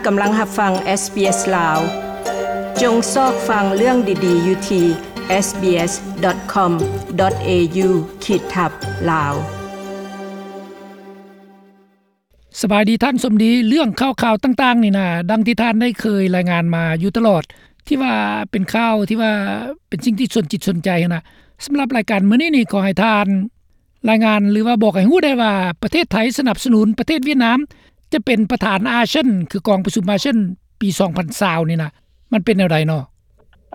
ກຳລັງຮັບຟັງ SBS ລາວ. ຈົ່ງຊອກຟັງເລື່ອງດີໆຢູ່ທີ່ SBS.com.au ຂີດທັບ ລາວ. ສະບາຍດີທ່ານສົມດີ. ເລື່ອງຂ່າວໆຕ່າງໆນີ້ນະ ດັ່ງທີ່ທ່ານໄດ້ເຄີຍລາຍງານມາຢູ່ຕະຫຼອດ ທີ່ວ່າເປັນຂ່າວທີ່ວ່າເປັນສິ່ງທີ່ສົນຈິດສົນໃຈຫັ້ນນະ. ສຳລັບລາຍການມື້ນີ້ນີ້ ຂໍໃຫ້ທ່ານລາຍງານ ຫຼືວ່າບອກໃຫ້ຮູ້ໄດ້ວ່າ ປະເທດໄທສະໜັບສະໜູນປະເທດຫວຽດນາມ ຈະເປັນປະທານອາຊຽນ ຄືກອງປະຊຸມອາຊຽນປີສອງພັນຊາວນີ້ນະ ມັນເປັນແນວໃດເນາະ?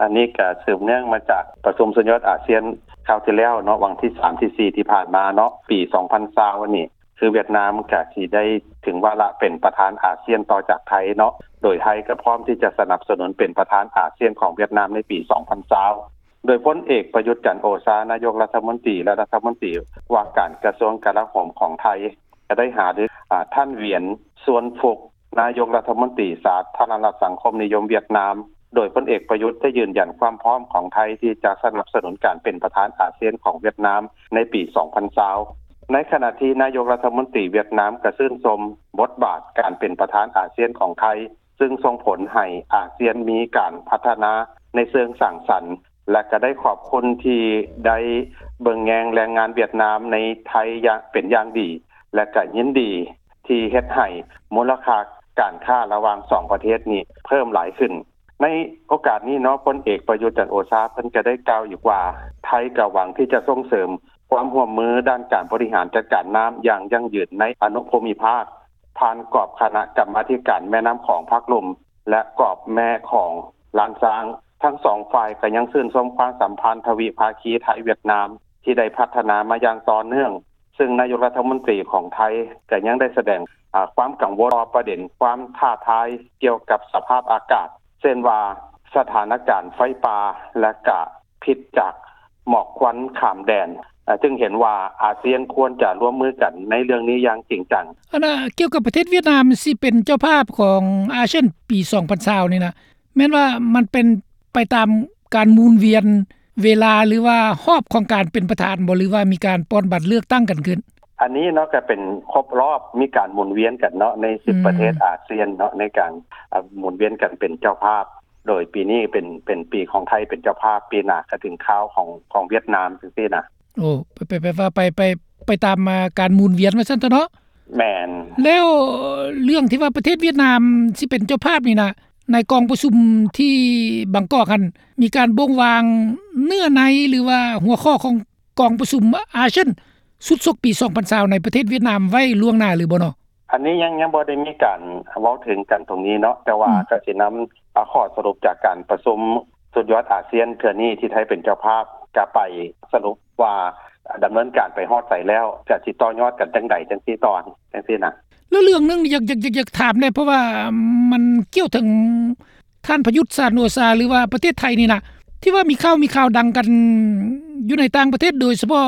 ອັນນີ້ກະສືບເນື່ອງມາຈາກປະຊຸມສຸດຍອດອາຊຽນຄາວທີ່ແລ້ວເນາະ ວັນທີສາມ ທີສີ່ ທີ່ຜ່ານມາເນາະ ປີສອງພັນຊາວນີ້ ຄືຫວຽດນາມກະຊິໄດ້ເຖິງວາລະເປັນປະທານອາຊຽນຕໍ່ຈາກໄທເນາະ ໂດຍໄທກະພ້ອມທີ່ຈະສະໜັບສະໜູນເປັນປະທານອາຊຽນຂອງຫວຽດນາມໃນປີສອງພັນຊາວ ໂດຍພົນເອກ ປະຍຸດ ຈັນໂອຊາ ນາຍົກລັດຖະມົນຕີ ແລະ ລັດຖະມົນຕີວ່າການກະຊວງກະລາໂຫມຂອງໄທ ກະໄດ້ຫາລື ອາ ທ່ານ ຫວຽນ ຊວນຟຸກ ນາຍົກລັດຖະມົນຕີສາທາລະນະລັດສັງຄົມນິຍົມຫວຽດນາມ ໂດຍພົນເອກ ປະຍຸດ ໄດ້ຢືນຢັນຄວາມພ້ອມຂອງໄທທີ່ຈະສະໜັບສະໜູນການເປັນປະທານອາຊຽນຂອງຫວຽດນາມໃນປີສອງພັນຊາວ. ໃນຂະນະທີ່ນາຍົກລັດຖະມົນຕີຫວຽດນາມກະຊື່ນຊົມບົດບາດການເປັນປະທານອາຊຽນຂອງໄທ ຊຶ່ງສົ່ງຜົນໃຫ້ອາຊຽນມີການພັດທະນາໃນເຊີງສ້າງສັນ ແລະ ກະໄດ້ຂອບຄຸນທີ່ໄດ້ເບິ່ງແຍງແຮງງານຫວຽດນາມໃນໄທຢ່າງ ເປັນຢ່າງດີ ແລະ ກະຍິນດີທີ່ເຮັດໃຫ້ມູນລະຄ່າການຄ້າລະຫວ່າງສອງປະເທດນີ້ເພີ່ມຫຼາຍຂຶ້ນ. ໃນໂອກາດນີ້ເນາະ ພົນເອກ ປະຍຸດ ຈັນໂອຊາ ເພິ່ນກະໄດ້ກ່າວອີກວ່າ ໄທກະຫວັງທີ່ຈະສົ່ງເສີມຄວາມຮ່ວມມືດ້ານການບໍລິຫານຈັດການນ້ຳຢ່າງຢັ້ງຢືນໃນອະນຸພູມິພາກ ຜ່ານກອບຄະນະກຳມາທິການແມ່ນ້ຳຂອງພາກລຸ່ມ ແລະ ກອບແມ່ຂອງລ້ານຊ້າງ. ທັງສອງຝ່າຍກະຍັງຊື່ນຊົມຄວາມສຳພັນທະວິພາຄີໄທຫວຽດນາມ ທີ່ໄດ້ພັດທະນາມາຢ່າງຕໍ່ເນື່ອງ, ຊຶ່ງນາຍົກລັດຖະມົນຕີຂອງໄທກະຍັງໄດ້ສະແດງ ອາ ຄວາມກັງວົນຕໍ່ປະເດັນຄວາມທ້າທາຍກ່ຽວກັບສະພາບອາກາດ ເຊັ່ນວ່າ ສະຖານະການໄຟປ່າ ແລະ ກະພິດຈາກໝອກຄວັນຂ້າມແດນ, ອາ ຈຶ່ງເຫັນວ່າອາຊຽນຄວນຈະຮ່ວມມືກັນໃນເລື່ອງນີ້ຢ່າງຈິງຈັງ. ອັນນ່າ ກ່ຽວກັບປະເທດຫວຽດນາມຊິເປັນເຈົ້າພາບຂອງອາຊຽນປີສອງພັນຊາວນີ້ນະ ແມ່ນວ່າມັນເປັນໄປຕາມການໝູນວຽນເວລາ ຫຼືວ່າຮອບຂອງການເປັນປະທານບໍ່ ຫຼືວ່າມີການປ່ອນບັດເລືອກຕັ້ງກັນຂຶ້ນ? ອັນນີ້ເນາະ ກະເປັນຄົບຮອບ ມີການໝູນວຽນກັນເນາະ ໃນສິບປະເທດອາຊຽນເນາະ ໃນການ ອາ ໝູນວຽນກັນເປັນເຈົ້າພາບ. ໂດຍປີນີ້ເປັນ ເປັນປີຂອງໄທເປັນເຈົ້າພາບ ປີໜ້າກະເຖິງຄາວຂອງ ຂອງຫວຽດນາມຈັ່ງຊີ້ນະ. ໂອ້ ແປ ແປ ແປວ່າໄປ ໄປ ໄປຕາມ ອາ ການໝູນວຽນວ່າຊັ້ນເຖາະເນາະ. ແມ່ນ. ແລ້ວເລື່ອງທີ່ວ່າປະເທດຫວຽດນາມຊິເປັນເຈົ້າພາບນີ້ນະ ໃນກອງປະຊຸມທີ່ບາງກອກຫັ້ນ ມີການບົ່ງວາງເນື້ອໃນ ຫຼືວ່າຫົວຂໍ້ຂອງກອງປະຊຸມອາຊຽນຊຸດສົກປີສອງພັນຊາວໃນປະເທດຫວຽດນາມໄວ້ລ່ວງໜ້າຫຼືບໍ່ເນາະ? ອັນນີ້ຍັງ ຍັງບໍ່ໄດ້ມີການເວົ້າເຖິງກັນຕົງນີ້ເນາະ ແຕ່ວ່າ ອືມ ກະຊິນຳ ອາ ຂໍ້ສະຫຼຸບຈາກການປະຊຸມສຸດຍອດອາຊຽນເທື່ອນີ້ທີ່ໄທເປັນເຈົ້າພາບ ກະໄປສະຫຼຸບວ່າ ດຳເນີນການໄປຮອດໃສແລ້ວ ກະຊິຕໍ່ຍອດກັນຈັ່ງໃດຈັ່ງຊີ້ຕໍ່ ຈັ່ງຊີ້ນະ. ແລ້ວເລື່ອງໜຶ່ງຢາກ ຢາກ ຢາກ ຢາກຖາມແດ່ ເພາະວ່າມັນກ່ຽວເຖິງທ່ານປະຍຸດ ຈັນໂອຊາ ຫຼືວ່າປະເທດໄທນີ້ນະ ທີ່ວ່າມີຂ່າວ ມີຂ່າວດັງກັນຢູ່ໃນຕ່າງປະເທດ ໂດຍສະເພາະ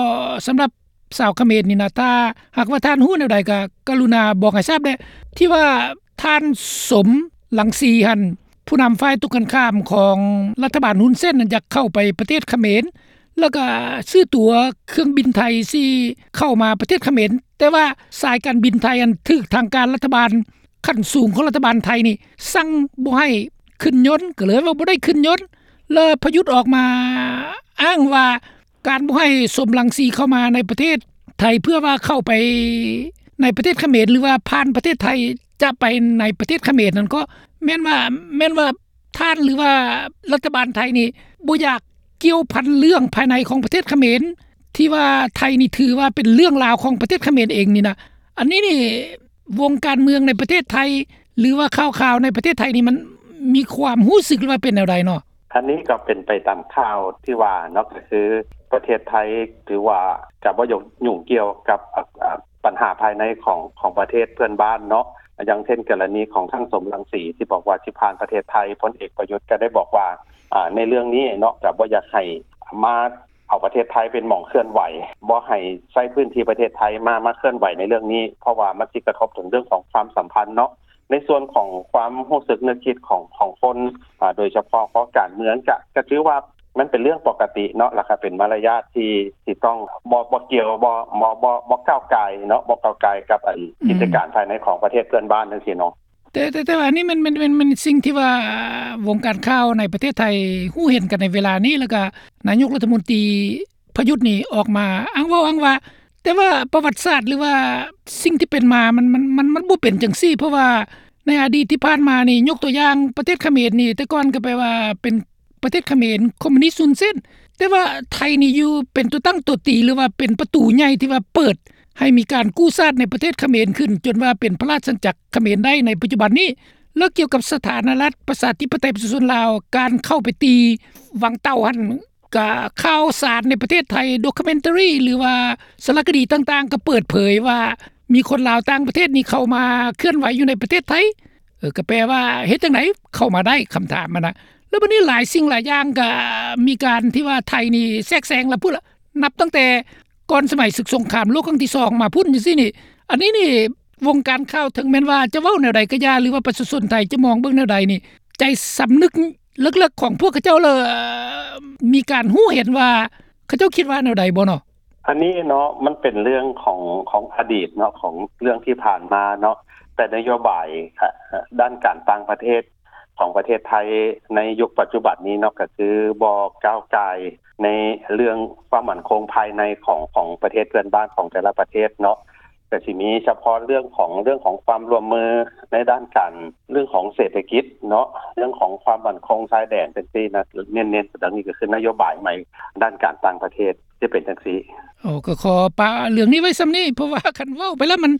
ສຳລັບ ຊາວຂະເໝນນີ້ນະ ຖ້າຫາກວ່າທ່ານຮູ້ແນວໃດກະກະລຸນາບອກໃຫ້ຊາບແດ່ ທີ່ວ່າທ່ານ ສົມ ລັງສີ ຫັ້ນ ຜູ້ນຳຝ່າຍຕົງກັນຂ້າມຂອງລັດຖະບານຮຸນເຊນນັ້ນ ຢາກເຂົ້າໄປປະເທດຂະເໝນ ແລ້ວກະຊື້ຕົ໋ວເຄື່ອງບິນໄທຊິເຂົ້າມາປະເທດຂະເໝນ ແຕ່ວ່າສາຍການບິນໄທຫັ້ນ ຖືກທາງການລັດຖະບານ ຂັ້ນສູງຂອງລັດຖະບານໄທນີ້ສັ່ງບໍ່ໃຫ້ຂຶ້ນຍົນ ກະເລີຍວ່າບໍ່ໄດ້ຂຶ້ນຍົນ ແລ້ວປະຍຸດອອກມາອ້າງວ່າ ການບໍ່ໃຫ້ ສົມ ລັງສີ ເຂົ້າມາໃນປະເທດໄທ ເພື່ອວ່າເຂົ້າໄປໃນປະເທດຂະເໝນ ຫຼືວ່າຜ່ານປະເທດໄທຈະໄປໃນປະເທດຂະເໝນນັ້ນ ກໍແມ່ນວ່າ ແມ່ນວ່າທ່ານ ຫຼືວ່າລັດຖະບານໄທນີ້ບໍ່ຢາກກ່ຽວພັນເລື່ອງພາຍໃນຂອງປະເທດຂະເໝນ ທີ່ວ່າໄທນີ້ຖືວ່າເປັນເລື່ອງລາວຂອງປະເທດຂະເໝນເອງນີ້ນະ. ອັນນີ້ນີ້ ວົງການເມືອງໃນປະເທດໄທ ຫຼືວ່າຂ່າວໆໃນປະເທດໄທນີ້ ມັນມີຄວາມຮູ້ສຶກ ຫຼືວ່າເປັນແນວໃດເນາະ? ອັນນີ້ກໍເປັນໄປຕາມຂ່າວທີ່ວ່າເນາະ ກໍຄືປະເທດໄທຖືວ່າຈະບໍ່ຫຍຸ້ງກ່ຽວກັບ ອາ ອາ ບັນຫາພາຍໃນຂອງ ຂອງປະເທດເພື່ອນບ້ານເນາະ ຢ່າງເຊັ່ນ ກໍລະນີຂອງທ່ານ ສົມ ລັງສີ ທີ່ບອກວ່າຊິຜ່ານປະເທດໄທ ພົນເອກ ປະຍຸດ ກໍໄດ້ບອກວ່າ ອາ ໃນເລື່ອງນີ້ເນາະ ກໍບໍ່ຢາກໃຫ້ມາ ເອົາປະເທດໄທເປັນໝ່ອງເຄື່ອນໄຫວ ບໍ່ໃຫ້ໃຊ້ພື້ນທີ່ປະເທດໄທມາ ມາເຄື່ອນໄຫວໃນເລື່ອງນີ້ ເພາະວ່າມັນຊິກະທົບເຖິງເລື່ອງຂອງຄວາມສຳພັນເນາະ. ໃນສ່ວນຂອງຄວາມຮູ້ສຶກນຶກຄິດຂອງ ຂອງຄົນ ອາ ໂດຍສະເພາະຄອງການເມືອງ ກະ ກະຖືວ່າມັນເປັນເລື່ອງປົກກະຕິເນາະ ແລ້ວກະເປັນມາລະຍາດທີ່ ທີ່ຕ້ອງບໍ່ ບໍ່ກ່ຽວ ບໍ່ ບໍ່ ບໍ່ ບໍ່ກ້າວກ່າຍເນາະ ບໍ່ກ້າວກ່າຍກັບ ອັນ ອືມ ກິດຈະການພາຍໃນຂອງປະເທດເພື່ອນບ້ານຈັ່ງຊີ້ເນາະ. ແຕ່ ແຕ່ ແຕ່ວ່າອັນນີ້ແມ່ນ ແມ່ນ ແມ່ນ ແມ່ນສິ່ງທີ່ວ່າວົງການຂ່າວໃນປະເທດໄທຮູ້ເຫັນກັນໃນເວລານີ້ ແລ້ວກະນາຍົກລັດຖະມົນຕີປະຍຸດນີ້ອອກມາອ້າງເວົ້າອ້າງວ່າ ແຕ່ວ່າປະຫວັດສາດ ຫຼືວ່າສິ່ງທີ່ເປັນມາ ມັນ ມັນ ມັນ ມັນບໍ່ເປັນຈັ່ງຊີ້ ເພາະວ່າໃນອະດີດທີ່ຜ່ານມານີ້ ຍົກຕົວຢ່າງປະເທດຂະເໝນນີ້ ແຕ່ກ່ອນກໍແປວ່າເປັນ ປະເທດຂະເໝນຄອມມູນິດຮຸນເສັ້ນ ແຕ່ວ່າໄທນີ້ຢູ່ເປັນຕົວຕັ້ງຕົວຕີ ຫຼືວ່າເປັນປະຕູໃຫຍ່ທີ່ວ່າເປີດໃຫ້ມີການກູ້ຊາດໃນປະເທດຂະເໝນຂຶ້ນ ຈົນວ່າເປັນພະລາຊະອານາຈັກຂະເໝນໄດ້ໃນປັດຈຸບັນນີ້. ແລ້ວກ່ຽວກັບສະຖານະລັດປະຊາທິປະໄຕປະຊາຊົນລາວ ການເຂົ້າໄປຕີວັງເຕົ່າຫັ້ນ ກະຂ່າວສານໃນປະເທດໄທ documentary ຫຼືວ່າສາລະຄະດີຕ່າງໆ ກໍເປີດເຜີຍວ່າມີຄົນລາວຕ່າງປະເທດນີ້ເຂົ້າມາເຄື່ອນໄຫວຢູ່ໃນປະເທດໄທ. ເອີ ກໍແປວ່າເຮັດຈັ່ງໃດເຂົ້າມາໄດ້ ຄຳຖາມຫັ້ນນະ. ແລ້ວບັດນີ້ຫຼາຍສິ່ງຫຼາຍຢ່າງກໍມີການທີ່ວ່າໄທນີ້ແຊກແຊງລະພຸ້ນລະ ນັບຕັ້ງແຕ່ກ່ອນສະໄໝສຶກສົງຄາມໂລກຄັ້ງທີສອງມາພຸ້ນຈັ່ງຊີ້ນີ້. ອັນນີ້ນີ້ວົງການຂ່າວເຖິງແມ່ນວ່າຈະເວົ້າແນວໃດກໍຢ່າ ຫຼືວ່າປະຊາຊົນໄທຈະມອງເບິ່ງແນວໃດນີ້ ໃຈສຳນຶກເລິກໆຂອງພວກເຂົາເຈົ້າລະມີການຮູ້ເຫັນວ່າ ເຂົາເຈົ້າຄິດວ່າແນວໃດບໍ່ເນາະ? ອັນນີ້ເນາະ ມັນເປັນເລື່ອງຂອງ ຂອງອະດີດເນາະ ຂອງເລື່ອງທີ່ຜ່ານມາເນາະ ແຕ່ນະໂຍບາຍ ອາ ດ້ານການຕ່າງປະເທດຂອງປະເທດໄທໃນຍຸກປັດຈຸບັນນີ້ເນາະ ກໍຄືບໍ່ກ້າວກ່າຍໃນເລື່ອງຄວາມໝັ້ນຄົງພາຍໃນຂອງ ຂອງປະເທດເພື່ອນບ້ານຂອງແຕ່ລະປະເທດເນາະ. ກໍຊິມີສະເພາະເລື່ອງຂອງ ເລື່ອງຂອງຄວາມຮ່ວມມືໃນດ້ານການ ເລື່ອງຂອງເສດຖະກິດເນາະ ເລື່ອງຂອງຄວາມໝັ້ນຄົງຊາຍແດນຈັ່ງຊີ້ນະ ເນັ້ນໆ ອັນນີ້ກໍຄືນະໂຍບາຍໃໝ່ດ້ານການຕ່າງປະເທດ ຈະເປັນຈັ່ງຊີ້. ໂອ້ ກໍຂໍປະເລື່ອງນີ້ໄວ້ສ່ຳນີ້ ເພາະວ່າຄັນເວົ້າໄປແລ້ວມັນ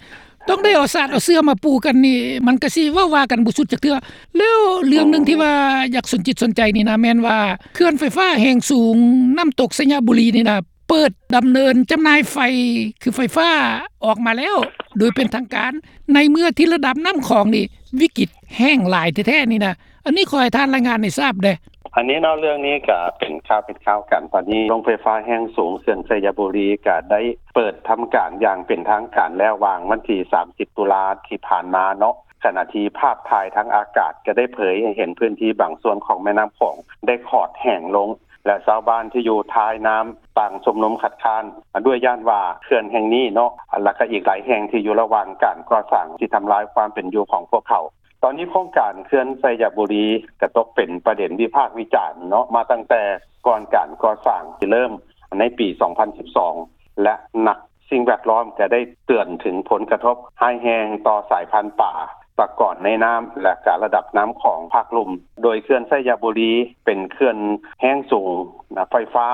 ຕ້ອງໄດ້ເອົາສາດເອົາເສື່ອມາປູກັນນີ້ ມັນກໍຊິເວົ້າວ່າກັນບໍ່ສຸດຈັກເທື່ອ. ແລ້ວເລື່ອງໜຶ່ງທີ່ວ່າຢາກສົນຈິດສົນໃຈນີ້ນະ ແມ່ນວ່າເຂື່ອນໄຟຟ້າແຮງສູງນ້ຳຕົກໄຊຍະບູລີນີ້ນະ ເປີດດຳເນີນຈຳໜ່າຍໄຟ ຄືໄຟຟ້າອອກມາແລ້ວໂດຍເປັນທາງການ ໃນເມື່ອທີ່ລະດັບນ້ຳຂອງນີ້ວິກິດແຫ້ງຫຼາຍແທ້ໆນີ້ນະ. ອັນນີ້ຂໍໃຫ້ທ່ານລາຍງານໃຫ້ຊາບແດ່. ອັນນີ້ເນາະ ເລື່ອງນີ້ກະເປັນຂ່າວເປັນຄາວກັນ ຕອນນີ້ໂຮງໄຟຟ້າແຮງສູງເຂື່ອນໄຊຍະບູລີກະໄດ້ເປີດທຳການຢ່າງເປັນທາງການແລ້ວ ຫວ່າງວັນທີສາມສິບຕຸລາທີ່ຜ່ານມາເນາະ ຂະນະທີ່ພາບຖ່າຍທາງອາກາດກະໄດ້ເຜີຍໃຫ້ເຫັນພື້ນທີ່ບາງສ່ວນຂອງແມ່ນ້ຳຂອງໄດ້ຂອດແຫ້ງລົງ ແລະ ຊາວບ້ານທີ່ຢູ່ທ້າຍນ້ຳຕ່າງຊຸມນຸມຄັດຄ້ານ ດ້ວຍຢ້ານວ່າເຂື່ອນແຫ່ງນີ້ເນາະ ແລະ ກະອີກຫຼາຍແຫ່ງທີ່ຢູ່ລະຫວ່າງການກໍ່ສ້າງ ຊິທຳລາຍຄວາມເປັນຢູ່ຂອງພວກເຂົາ. ຕອນນີ້ໂຄງການເຂື່ອນໄຊຍະບູລີກະຕົກເປັນປະເດັນວິພາກວິຈານເນາະ ມາຕັ້ງແຕ່ກ່ອນການກໍ່ສ້າງຊິເລີ່ມໃນປີສອງພັນສິບສອງ ແລະ ນັກສິ່ງແວດລ້ອມກະໄດ້ເຕືອນເຖິງຜົນກະທົບຮ້າຍແຮງຕໍ່ສາຍພັນປາ ປາກອນໃນນ້ຳ ແລະ ກະລະດັບນ້ຳຂອງພາກລຸ່ມ. ໂດຍເຂື່ອນໄຊຍະບູລີເປັນເຂື່ອນແຮງສູງ ນະ ໄຟຟ້າ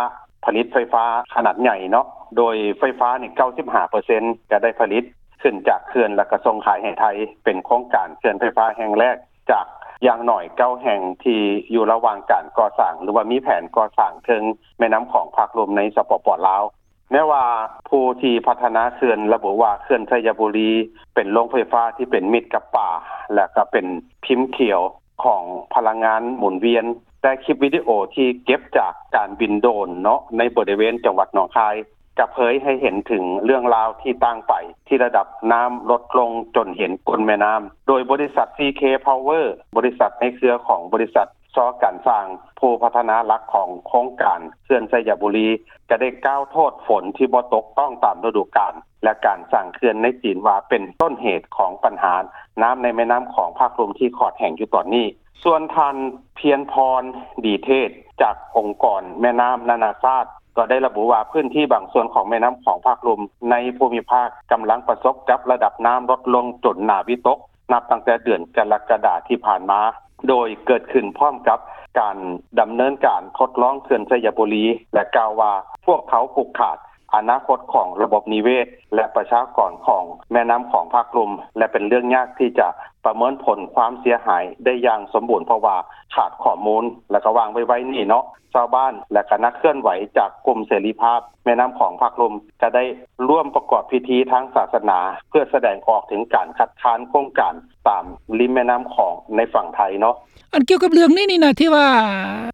ຜະລິດໄຟຟ້າຂະໜາດໃຫຍ່ເນາະ ໂດຍໄຟຟ້ານີ້ເກົ້າສິບຫ້າເປີເຊັນກະໄດ້ຜະລິດຂຶ້ນຈາກເຂື່ອນ ແລະ ກະສົ່ງຂາຍໃຫ້ໄທ ເປັນໂຄງການເຂື່ອນໄຟຟ້າແຫ່ງແລກຈາກຢ່າງໜ້ອຍເກົ້າແຫ່ງທີ່ຢູ່ລະຫວ່າງການກໍ່ສ້າງ ຫຼືວ່າມີແຜນກໍ່ສ້າງເທິງແມ່ນ້ຳຂອງພາກລຸ່ມໃນ ສປປ ລາວ. ແມ້ວ່າຜູ້ທີ່ພັດທະນາເຂື່ອນລະບຸວ່າ ເຂື່ອນໄຊຍະບູລີເປັນໂຮງໄຟຟ້າທີ່ເປັນມິດກັບປ່າ ແລະ ກະເປັນພິມຂຽວຂອງພະລັງງານໝູນວຽນ, ແຕ່ຄລິບວິດີໂອທີ່ເກັບຈາກການບິນໂດຣນເນາະ ໃນບໍລິເວນຈັງຫວັດໜອງຄາຍ ກະເຜີຍໃຫ້ເຫັນເຖິງເລື່ອງລາວທີ່ຕ່າງໄປ ທີ່ລະດັບນ້ຳລົດລົງຈົນເຫັນກົ້ນແມ່ນ້ຳ, ໂດຍບໍລິສັດ ຊີເຄ ພາວເວີ ບໍລິສັດໃນເຄືອຂອງບໍລິສັດ ຊ. ການສ້າງ ຜູ້ພັດທະນາຫຼັກຂອງໂຄງການເຂື່ອນໄຊຍະບູລີ ກະໄດ້ກ່າວໂທດຝົນທີ່ບໍ່ຕົກຕ້ອງຕາມລະດູການ ແລະ ການສ້າງເຂື່ອນໃນຈີນວ່າເປັນຕົ້ນເຫດຂອງບັນຫານ້ຳໃນແມ່ນ້ຳຂອງພາກລຸ່ມທີ່ຂອດແຫ້ງຢູ່ຕອນນີ້. ສ່ວນທ່ານ ພຽນພອນ ດີເທດ ຈາກອົງກອນແມ່ນ້ຳນານາຊາດ ກໍໄດ້ລະບຸວ່າພື້ນທີ່ບາງສ່ວນຂອງແມ່ນ້ຳຂອງພາກລຸ່ມໃນພູມິພາກກຳລັງປະສົບກັບລະດັບນ້ຳລົດລົງຈົນໜ້າວິຕົກ ນັບຕັ້ງແຕ່ເດືອນກໍລະກະດາທີ່ຜ່ານມາ ໂດຍເກີດຂຶ້ນພ້ອມກັບການດຳເນີນການທົດລອງເຂື່ອນໄຊຍະບູລີ ແລະ ກ່າວວ່າພວກເຂົາຜູກຂາດອະນາຄົດຂອງລະບົບນິເວດ ແລະ ປະຊາກອນຂອງແມ່ນ້ຳຂອງພາກລຸ່ມ ແລະ ເປັນເລື່ອງຍາກທີ່ຈະປະເມີນຜົນຄວາມເສຍຫາຍໄດ້ຢ່າງສົມບູນ ເພາະວ່າຂາດຂໍ້ມູນ ແລະ ກະວ່າງໄວໆນີ້ເນາະ ຊາວບ້ານ ແລະ ກະນັກເຄື່ອນໄຫວຈາກກຸ່ມເສລີພາບແມ່ນ້ຳຂອງພາກລຸ່ມ ກະໄດ້ຮ່ວມປະກອບພິທີທາງສາສະໜາ ເພື່ອສະແດງອອກເຖິງການຄັດຄ້ານໂຄງການຕາມລິມແມ່ນ້ຳຂອງໃນຝັ່ງໄທເນາະ. ອັນກ່ຽວກັບເລື່ອງນີ້ນີ້ນະ ທີ່ວ່າ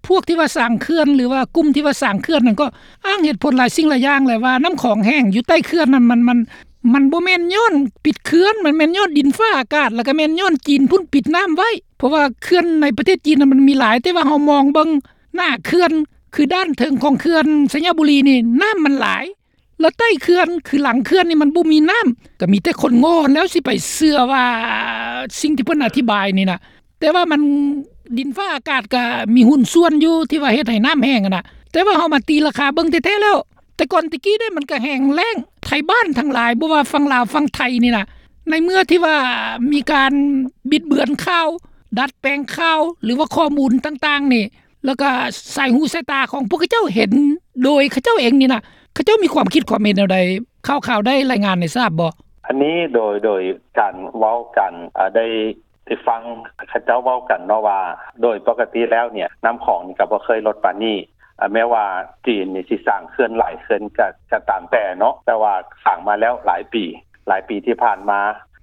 ພວກທີ່ວ່າສ້າງເຂື່ອນ ຫຼືວ່າກຸ່ມທີ່ວ່າສ້າງເຂື່ອນນັ້ນ ກໍອ້າງເຫດຜົນຫຼາຍສິ່ງຫຼາຍຢ່າງແຫຼະ ວ່ານ້ຳຂອງແຫ້ງຢູ່ໃຕ້ເຂື່ອນນັ້ນ ມັນ ມັນ ມັນບໍ່ແມ່ນຍ້ອນປິດເຂື່ອນ ມັນແມ່ນຍ້ອນດິນຟ້າອາກາດ ແລ້ວກະແມ່ນຍ້ອນຈີນພຸ້ນປິດນ້ຳໄວ້ ເພາະວ່າເຂື່ອນໃນປະເທດຈີນນະ ມັນມີຫຼາຍ ແຕ່ວ່າເຮົາມອງເບິ່ງໜ້າເຂື່ອນ ຄືດ້ານເທິງຂອງເຂື່ອນໄຊຍະບູລີນີ້ ນ້ຳມັນຫຼາຍ ແລ້ວໃຕ້ເຂື່ອນ ຄືຫຼັງເຂື່ອນນີ້ມັນບໍ່ມີນ້ຳ ກໍມີແຕ່ຄົນໂງ່ຫັ້ນແຫຼ້ວຊິໄປເຊື່ອວ່າສິ່ງທີ່ເພິ່ນອະທິບາຍນີ້ນະ. ແຕ່ວ່າມັນ ດິນຟ້າອາກາດກໍມີຫຸ້ນສ່ວນຢູ່ທີ່ວ່າເຮັດໃຫ້ນ້ຳແຫ້ງຫັ້ນນະ ແຕ່ວ່າເຮົາມາຕີລາຄາເບິ່ງແທ້ໆແລ້ວ ແຕ່ກ່ອນແຕ່ກີ້ເດ້ ມັນກໍແຫ້ງແລ້ງ ໄທບ້ານທັງຫຼາຍ ບໍ່ວ່າຝັ່ງລາວຝັ່ງໄທນີ້ນະ ໃນເມື່ອທີ່ວ່າມີການບິດເບືອນຂ່າວ ດັດແປງຂ່າວ ຫຼືວ່າຂໍ້ມູນຕ່າງໆນີ້ ແລ້ວກໍສາຍຫູສາຍຕາຂອງພວກເຂົາເຈົ້າເຫັນໂດຍເຂົາເຈົ້າເອງນີ້ນະ ເຂົາເຈົ້າມີຄວາມຄິດຄວາມເຫັນແນວໃດ? ຂ່າວໆໄດ້ລາຍງານໃຫ້ຊາບບໍ່? ອັນນີ້ໂດຍ ໂດຍການເວົ້າກັນ ອາ ໄດ້ ໄດ້ຟັງເຂົາເຈົ້າເວົ້າກັນເນາະວ່າ ໂດຍປົກກະຕິແລ້ວເນຍ ນ້ຳຂອງນີ້ກໍບໍ່ເຄີຍລົດປານນີ້ ອາ ແມ້ວ່າຈີນນີ້ຊິສ້າງເຂື່ອນຫຼາຍເຂື່ອນກໍ ກໍຕາມແຕ່ເນາະ ແຕ່ວ່າສ້າງມາແລ້ວຫຼາຍປີ ຫຼາຍປີທີ່ຜ່ານມາ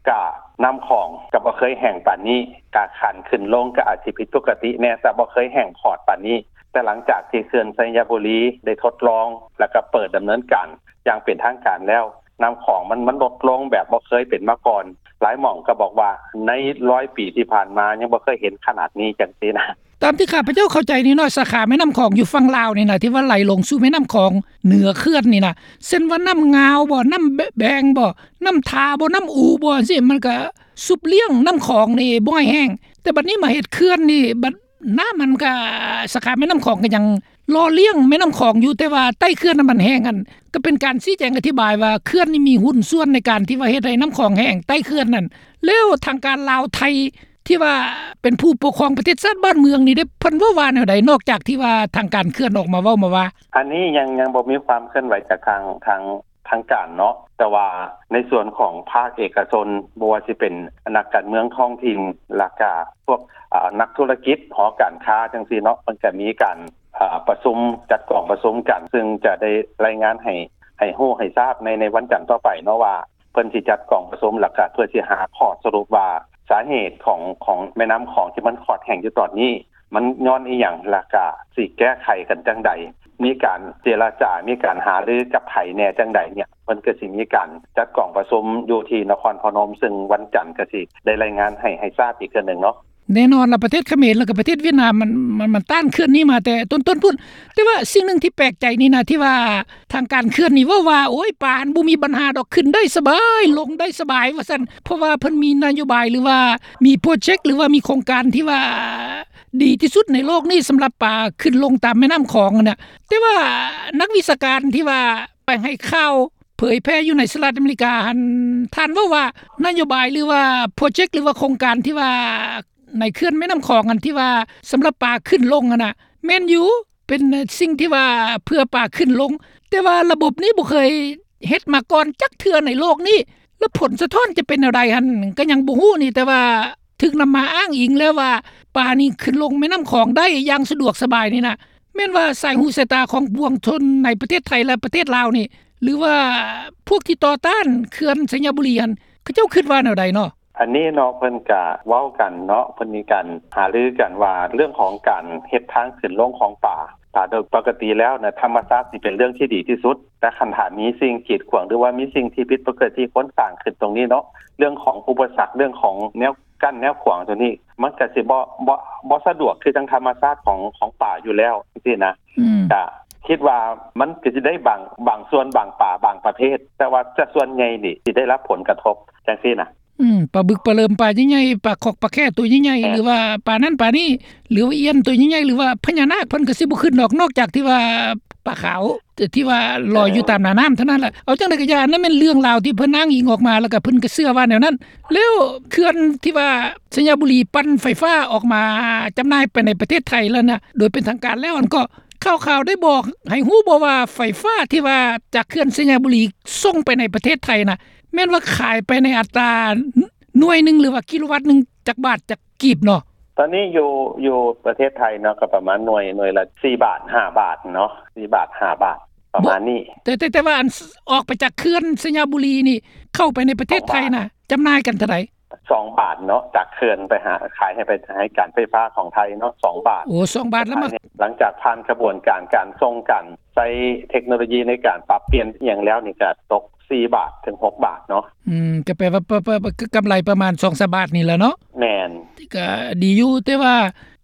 ກະນ້ຳຂອງກໍບໍ່ເຄີຍແຫ້ງປານນີ້ ກະຂັ້ນຂຶ້ນລົງກໍອາດຊິຜິດປົກກະຕິແດ່ ແຕ່ບໍ່ເຄີຍແຫ້ງຂອດປານນີ້ ແຕ່ຫຼັງຈາກທີ່ເຂື່ອນໄຊຍະບູລີໄດ້ທົດລອງ ແລ້ວກໍເປີດດຳເນີນການຢ່າງເປັນທາງການແລ້ວ ນ້ຳຂອງມັນ ມັນລົດລົງແບບບໍ່ເຄີຍເປັນມາກ່ອນ ຫຼາຍໝ່ອງກໍບອກວ່າໃນຮ້ອຍປີທີ່ຜ່ານມາຍັງບໍ່ເຄີຍເຫັນຂະໜາດນີ້ ຈັ່ງຊີ້ນະ. ຕາມທີ່ຂ້າພະເຈົ້າເຂົ້າໃຈນີ້ເນາະ ສາຂາແມ່ນ້ຳຂອງຢູ່ຝັ່ງລາວນີ້ນະ ທີ່ວ່າໄຫຼລົງສູ່ແມ່ນ້ຳຂອງເໜືອເຂື່ອນນີ້ນະ ເຊັ່ນວ່ານ້ຳງາວບໍ ນ້ຳແບງບໍ ນ້ຳທາບໍ ນ້ຳອູບໍ ຈັ່ງຊີ້ ມັນກະຊຸບລ້ຽງນ້ຳຂອງນີ້ບໍ່ໃຫ້ແຫ້ງ ແຕ່ບັດນີ້ມາເຮັດເຂື່ອນນີ້ ບັດນ້ຳມັນກະ ສາຂາແມ່ນ້ຳຂອງກໍຍັງຫຼໍ່ລ້ຽງແມ່ນ້ຳຂອງຢູ່ ແຕ່ວ່າໃຕ້ເຂື່ອນນັ້ນມັນແຫ້ງຫັ້ນ ກໍເປັນການຊີ້ແຈງອະທິບາຍວ່າ ເຂື່ອນນີ້ມີຫຸ້ນສ່ວນໃນການທີ່ວ່າເຮັດໃຫ້ນ້ຳຂອງແຫ້ງໃຕ້ເຂື່ອນນັ້ນ ແລ້ວທາງການລາວໄທ ທີ່ວ່າເປັນຜູ້ປົກຄອງປະເທດຊາດບ້ານເມືອງນີ້ເດ້ ເພິ່ນເວົ້າວ່າແນວໃດ ນອກຈາກທີ່ວ່າທາງການເຂື່ອນອອກມາເວົ້າມາວ່າ? ອັນນີ້ຍັງ ຍັງບໍ່ມີຄວາມເຄື່ອນໄຫວຈາກທາງ ທາງ ທາງການເນາະ ແຕ່ວ່າໃນສ່ວນຂອງພາກເອກະຊົນ ບໍ່ວ່າຊິເປັນນັກການເມືອງທ້ອງຖິ່ນ ແລ້ວກະພວກ ອາ ນັກທຸລະກິດ ຫໍການຄ້າຈັ່ງຊີ້ເນາະ ເພິ່ນກະມີການ ອາ ປະຊຸມ ຈັດກອງປະຊຸມກັນ ຊຶ່ງຈະໄດ້ລາຍງານໃຫ້ ໃຫ້ຮູ້ໃຫ້ຊາບໃນ ໃນວັນຈັນຕໍ່ໄປເນາະວ່າ ເພິ່ນຊິຈັດກອງປະຊຸມ ແລ້ວກະເພື່ອຊິຫາຂໍ້ສະຫຼຸບວ່າ ສາເຫດຂອງ ຂອງແມ່ນ້ຳຂອງທີ່ມັນຂອດແຫ້ງຢູ່ຕອນນີ້ ມັນຍ້ອນອີຫຍັງ ແລ້ວກະຊິແກ້ໄຂກັນຈັ່ງໃດ ມີການເຈລະຈາ ມີການຫາລືກັບໃຜແດ່ຈັ່ງໃດເນຍ ເພິ່ນກໍຊິມີການຈັດກອງປະຊຸມຢູ່ທີ່ນະຄອນພະນົມ ຊຶ່ງວັນຈັນກໍຊິໄດ້ລາຍງານໃຫ້ ໃຫ້ຊາບອີກເທື່ອໜຶ່ງເນາະ. ແນ່ນອນລະ ປະເທດຂະເໝນ ແລ້ວກໍປະເທດຫວຽດນາມ ມັນ ມັນ ມັນຕ້ານເຂື່ອນນີ້ມາແຕ່ຕົ້ນໆພຸ້ນ ແຕ່ວ່າສິ່ງໜຶ່ງທີ່ແປກໃຈນີ້ນະ ທີ່ວ່າທາງການເຂື່ອນນີ້ເວົ້າວ່າ ໂອ້ຍ ປາຫັ້ນບໍ່ມີບັນຫາດອກ ຂຶ້ນໄດ້ສະບາຍ ລົງໄດ້ສະບາຍວ່າຊັ້ນ ເພາະວ່າເພິ່ນມີນະໂຍບາຍ ຫຼືວ່າມີໂປຣເຈັກ ຫຼືວ່າມີໂຄງການທີ່ວ່າດີທີ່ສຸດໃນໂລກນີ້ ສຳລັບປາຂຶ້ນລົງຕາມແມ່ນ້ຳຂອງຫັ້ນນະ ແຕ່ວ່ານັກວິຊາການທີ່ວ່າໄປໃຫ້ຂ່າວເຜີຍແຜ່ຢູ່ໃນສະຫະລັດອາເມລິກາຫັ້ນ ທ່ານເວົ້າວ່ານະໂຍບາຍ ຫຼືວ່າໂປຣເຈັກ ຫຼືວ່າໂຄງການທີ່ວ່າ ໃນເຂື່ອນແມ່ນ້ຳຂອງ ອັນທີ່ວ່າສຳລັບປາຂຶ້ນລົງຫັ້ນນະ ແມ່ນຢູ່ ເປັນສິ່ງທີ່ວ່າເພື່ອປາຂຶ້ນລົງ ແຕ່ວ່າລະບົບນີ້ບໍ່ເຄີຍເຮັດມາກ່ອນຈັກເທື່ອໃນໂລກນີ້ ແລ້ວຜົນສະທ້ອນຈະເປັນແນວໃດຫັ້ນ ກໍຍັງບໍ່ຮູ້ນີ້ ແຕ່ວ່າຖືກນຳມາອ້າງອີງແລ້ວວ່າ ປານີ້ຂຶ້ນລົງແມ່ນ້ຳຂອງໄດ້ຢ່າງສະດວກສະບາຍນີ້ນະ ແມ່ນວ່າສາຍຫູສາຍຕາຂອງປວງຊົນໃນປະເທດໄທ ແລະ ປະເທດລາວນີ້ ຫຼືວ່າພວກທີ່ຕໍ່ຕ້ານເຂື່ອນໄຊຍະບູລີຫັ້ນ ເຂົາເຈົ້າຄິດວ່າແນວໃດເນາະ? ອັນນີ້ເນາະ ເພິ່ນກະເວົ້າກັນເນາະ ເພິ່ນມີການຫາລືກັນວ່າ ເລື່ອງຂອງການເຮັດທາງຂຶ້ນລົງຂອງປາ ຕາໂດຍປົກກະຕິແລ້ວນະ ທຳມະຊາດຊິເປັນເລື່ອງທີ່ດີທີ່ສຸດ ແຕ່ຄັນຖ້າມີສິ່ງກີດຂວາງ ຫຼືວ່າມີສິ່ງທີ່ຜິດປົກກະຕິ ຄົນສ້າງຂຶ້ນຕົງນີ້ເນາະ ເລື່ອງຂອງອຸປະສັກ ເລື່ອງຂອງແນວກັ້ນແນວຂວາງຕົງນີ້ ມັນກະຊິບໍ່ ບໍ່ ບໍ່ສະດວກຄືຈັ່ງທຳມະຊາດຂອງ ຂອງປາຢູ່ແລ້ວ ຈັ່ງຊີ້ນະ ອືມ ກະຄິດວ່າມັນກະຊິໄດ້ບາງ ບາງສ່ວນ ບາງປາ ບາງປະເພດ ແຕ່ວ່າຈະສ່ວນໃຫຍ່ນີ້ຊິໄດ້ຮັບຜົນກະທົບ ຈັ່ງຊີ້ນະ. ອືມ ປາບຶກ ປາເຫຼີມ ປາໃຫຍ່ໆ ປາຂອກ ປາແຂ້ໂຕໃຫຍ່ໆ ເອີ ຫຼືວ່າປານັ້ນປານີ້ ຫຼືວ່າອຽນໂຕໃຫຍ່ໆ ຫຼືວ່າພະຍານາກ ເພິ່ນກໍຊິບໍ່ຂຶ້ນດອກ ນອກຈາກທີ່ວ່າປາຂາວ ທີ່ວ່າລອຍຢູ່ຕາມໜ້ານ້ຳເທົ່ານັ້ນແຫຼະ. ເອົາຈັ່ງໃດກໍຢ່າ ອັນນັ້ນແມ່ນເລື່ອງລາວທີ່ເພິ່ນອ້າງອີງອອກມາ ແລ້ວກໍເພິ່ນກໍເຊື່ອວ່າແນວນັ້ນ. ແລ້ວເຂື່ອນທີ່ວ່າໄຊຍະບູລີປັ່ນໄຟຟ້າອອກມາຈຳໜ່າຍໄປໃນປະເທດໄທແລ້ວນະ ໂດຍເປັນທາງການແລ້ວ ອັນກໍ ຂ່າວໆໄດ້ບອກໃຫ້ຮູ້ບໍ່ວ່າ ໄຟຟ້າທີ່ວ່າຈາກເຂື່ອນໄຊຍະບູລີສົ່ງໄປໃນປະເທດໄທນະ ແມ່ນວ່າຂາຍໄປໃນອັດຕາໜ່ວຍໜຶ່ງ ຫຼືວ່າກິໂລວັດໜຶ່ງ ຈັກບາດ ຈັກກີບເນາະ? ຕອນນີ້ຢູ່ ຢູ່ປະເທດໄທເນາະ ກໍປະມານໜ່ວຍ ໜ່ວຍລະສີ່ບາດ ຫ້າບາດເນາະ ສີ່ບາດ ຫ້າບາດ ປະມານນີ້. ແຕ່ ແຕ່ ແຕ່ວ່າອັນ ອອກໄປຈາກເຂື່ອນໄຊຍະບູລີນີ້ ເຂົ້າໄປໃນປະເທດໄທນະ ຈຳໜ່າຍກັນເທົ່າໃດ? ສອງບາດເນາະ ຈາກເຂື່ອນໄປຫາ ຂາຍໃຫ້ໄປ ໃຫ້ການໄຟຟ້າຂອງໄທເນາະ ສອງບາດ. ໂອ້ ສອງບາດແລ້ວມາ ຫຼັງຈາກຜ່ານຂະບວນການ ການສົ່ງ ການໃຊ້ເທັກໂນໂລຢີໃນການປັບປ່ຽນອີ່ຫຍັງແລ້ວນີ້ ກະຕົກສີ່ບາດເຖິງຫົກບາດເນາະ. ອືມ ກະແປວ່າ ປະ ປະ ປະ ກຳໄລປະມານສອງສາມບາດນີ້ແຫຼະເນາະ. ແມ່ນ. ກໍດີຢູ່ ແຕ່ວ່າ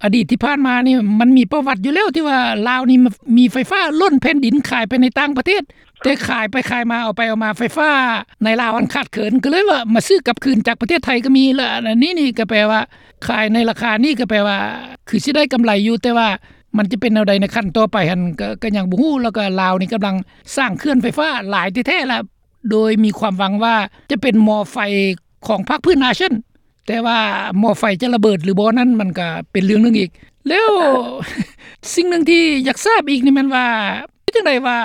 ອະດີດທີ່ຜ່ານມານີ້ ມັນມີປະຫວັດຢູ່ແລ້ວ ທີ່ວ່າລາວນີ້ມີໄຟຟ້າລົ້ນແຜ່ນດິນ ຂາຍໄປໃນຕ່າງປະເທດ ແຕ່ຂາຍໄປຂາຍມາ ເອົາໄປເອົາມາ ໄຟຟ້າໃນລາວຫັ້ນຂາດເຂີນ ກໍເລີຍວ່າມາຊື້ກັບຄືນຈາກປະເທດໄທກໍມີ. ແລ້ວອັນນີ້ນີ້ກໍແປວ່າ ຂາຍໃນລາຄານີ້ກໍແປວ່າ ຄືຊິໄດ້ກຳໄລຢູ່ ແຕ່ວ່າມັນຈະເປັນແນວໃດໃນຂັ້ນຕໍ່ໄປຫັ້ນ ກໍ ກໍຍັງບໍ່ຮູ້. ແລ້ວກໍລາວນີ້ກຳລັງສ້າງເຂື່ອນໄຟຟ້າຫຼາຍແທ້ໆລະ ໂດຍມີຄວາມຫວັງວ່າຈະເປັນໝໍ້ໄຟຂອງພາກພື້ນອາຊຽນ ແຕ່ວ່າໝໍ້ໄຟຈະລະເບີດຫຼືບໍ່ນັ້ນ ມັນກໍເປັນເລື່ອງໜຶ່ງອີກ. ແລ້ວສິ່ງໜຶ່ງທີ່ຢາກຊາບອີກນີ້ແມ່ນວ່າ ເປັນຈັ່ງໃດວ່າ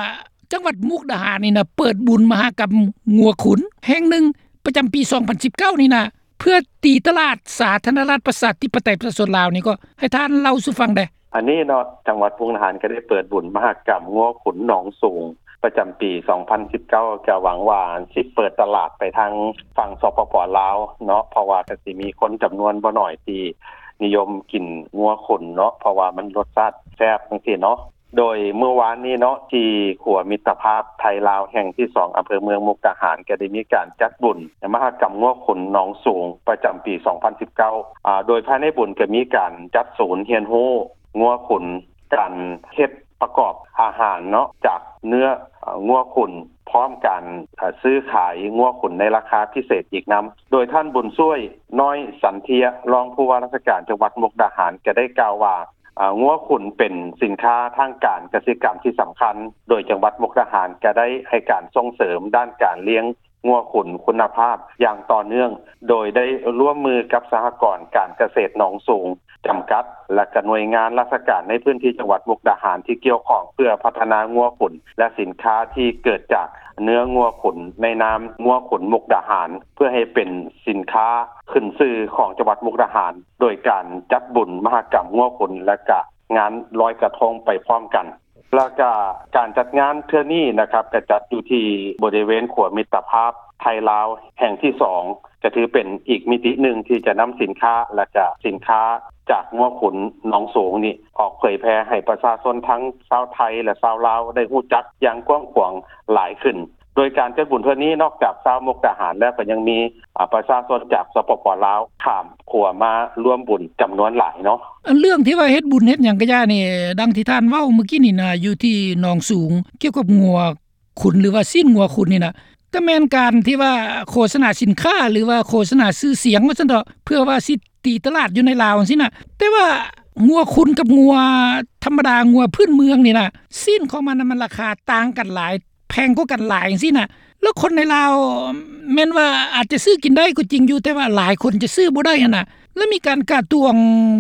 ຈັງຫວັດມຸກດາຫານນີ້ນະ ເປີດບຸນມະຫະກຳງົວຂຸນແຫ່ງໜຶ່ງ ປະຈຳປີສອງພັນສິບເກົ້ານີ້ນະ ເພື່ອຕີຕະຫຼາດສາທາລະນະລັດປະຊາທິປະໄຕປະຊາຊົນລາວນີ້ ກໍໃຫ້ທ່ານເລົ່າສູ່ຟັງແດ່. ອັນນີ້ເນາະ ຈັງຫວັດມຸກດາຫານກໍໄດ້ເປີດບຸນມະຫະກຳງົວຂຸນໜອງສູງ ປະຈຳປີສອງພັນສິບເກົ້າ ກໍຫວັງວ່າຊິເປີດຕະຫຼາດໄປທາງຝັ່ງ ສປປ ລາວເນາະ ເພາະວ່າກໍຊິມີຄົນຈຳນວນບໍ່ໜ້ອຍທີ່ນິຍົມກິນງົວຂຸນເນາະ ເພາະວ່າມັນລົດຊາດແຊບຈັ່ງຊີ້ເນາະ. ໂດຍມື້ວານນີ້ເນາະ ທີ່ຂົວມິດຕະພາບໄທລາວແຫ່ງທີສອງ ອຳເພີເມືອງມຸກດາຫານ ກໍໄດ້ມີການຈັດບຸນມະຫະກຳງົວຂຸນໜອງສູງ ປະຈຳປີສອງພັນສິບເກົ້າ ອາ ໂດຍພາຍໃນບຸນກໍມີການຈັດສູນຮຽນຮູ້ງົວຂຸນ ການເຮັດປະກອບອາຫານເນາະ ຈາກເນື້ອ ອາ ງົວຂຸນ ພ້ອມການ ອາ ຊື້ຂາຍງົວຂຸນໃນລາຄາພິເສດອີກນຳ. ໂດຍທ່ານ ບຸນຊ່ວຍ ນ້ອຍສັນເທຍ ຮອງຜູ້ວ່າລາຊະການຈັງຫວັດມຸກດາຫານ ກໍໄດ້ກ່າວວ່າ ອາ ງົວຂຸນເປັນສິນຄ້າທາງການກະສິກຳທີ່ສຳຄັນ ໂດຍຈັງຫວັດມຸກດາຫານກໍໄດ້ໃຫ້ການສົ່ງເສີມດ້ານການລ້ຽງງົວຂຸນຄຸນນະພາບຢ່າງຕໍ່ເນື່ອງ ໂດຍໄດ້ຮ່ວມມືກັບສະຫະກອນການກະເສດໜອງສູງຈຳກັດ ແລະ ກະໜ່ວຍງານລາຊະການໃນພື້ນທີ່ຈັງຫວັດມຸກດາຫານທີ່ກ່ຽວຂ້ອງ ເພື່ອພັດທະນາງົວຂຸນ ແລະ ສິນຄ້າທີ່ເກີດຈາກເນື້ອງົວຂຸນ ໃນນາມງົວຂຸນມຸກດາຫານ ເພື່ອໃຫ້ເປັນສິນຄ້າຂຶ້ນຊື່ຂອງຈັງຫວັດມຸກດາຫານ ໂດຍການຈັດບຸນມະຫະກຳງົວຂຸນ ແລະ ກະງານລອຍກະທົງໄປພ້ອມກັນ. ແລ້ວກະການຈັດງານເທື່ອນີ້ນະຄັບ ກະຈັດຢູ່ທີ່ບໍລິເວນຂົວມິດຕະພາບໄທລາວແຫ່ງທີສອງ ກະຖືເປັນອີກມິຕິໜຶ່ງທີ່ຈະນຳສິນຄ້າ ແລະ ກະສິນຄ້າຈາກງົວຂຸນໜອງສູງນີ້ ອອກເຜີຍແຜ່ໃຫ້ປະຊາຊົນທັງຊາວໄທ ແລະ ຊາວລາວໄດ້ຮູ້ຈັກຢ່າງກວ້າງຂວາງຫຼາຍຂຶ້ນ. ໂດຍການຈັດບຸນເທື່ອນີ້ ນອກຈາກຊາວມຸກດາຫານແລ້ວ ກໍຍັງມີ ອາ ປະຊາຊົນຈາກ ສປປ ລາວ ຂ້າມຂົວມາຮ່ວມບຸນຈຳນວນຫຼາຍເນາະ. ອັນເລື່ອງທີ່ວ່າເຮັດບຸນເຮັດຫຍັງກະຢ່ານີ້ ດັ່ງທີ່ທ່ານເວົ້າມື້ກີ້ນີ້ນະ ຢູ່ທີ່ໜອງສູງ ກ່ຽວກັບງົວຂຸນ ຫຼືວ່າຊີ້ນງົວຂຸນນີ້ນະ ກະແມ່ນການທີ່ວ່າໂຄສະນາສິນຄ້າ ຫຼືວ່າໂຄສະນາຊື່ສຽງວ່າຊັ້ນເຖາະ ເພື່ອວ່າຊິຕີຕະຫຼາດຢູ່ໃນລາວຈັ່ງຊີ້ນະ. ແຕ່ວ່າງົວຂຸນກັບງົວທຳມະດາ ງົວພື້ນເມືອງນີ້ນະ ຊີ້ນຂອງມັນນະ ມັນລາຄາຕ່າງກັນຫຼາຍ ແພງກວ່າກັນຫຼາຍຈັ່ງຊີ້ນະ. ແລ້ວຄົນໃນລາວແມ່ນວ່າອາດຈະຊື້ກິນໄດ້ກໍຈິງຢູ່ ແຕ່ວ່າຫຼາຍຄົນຈະຊື້ບໍ່ໄດ້ຫັ້ນນະ. ແລ້ວມີການກະຕວງ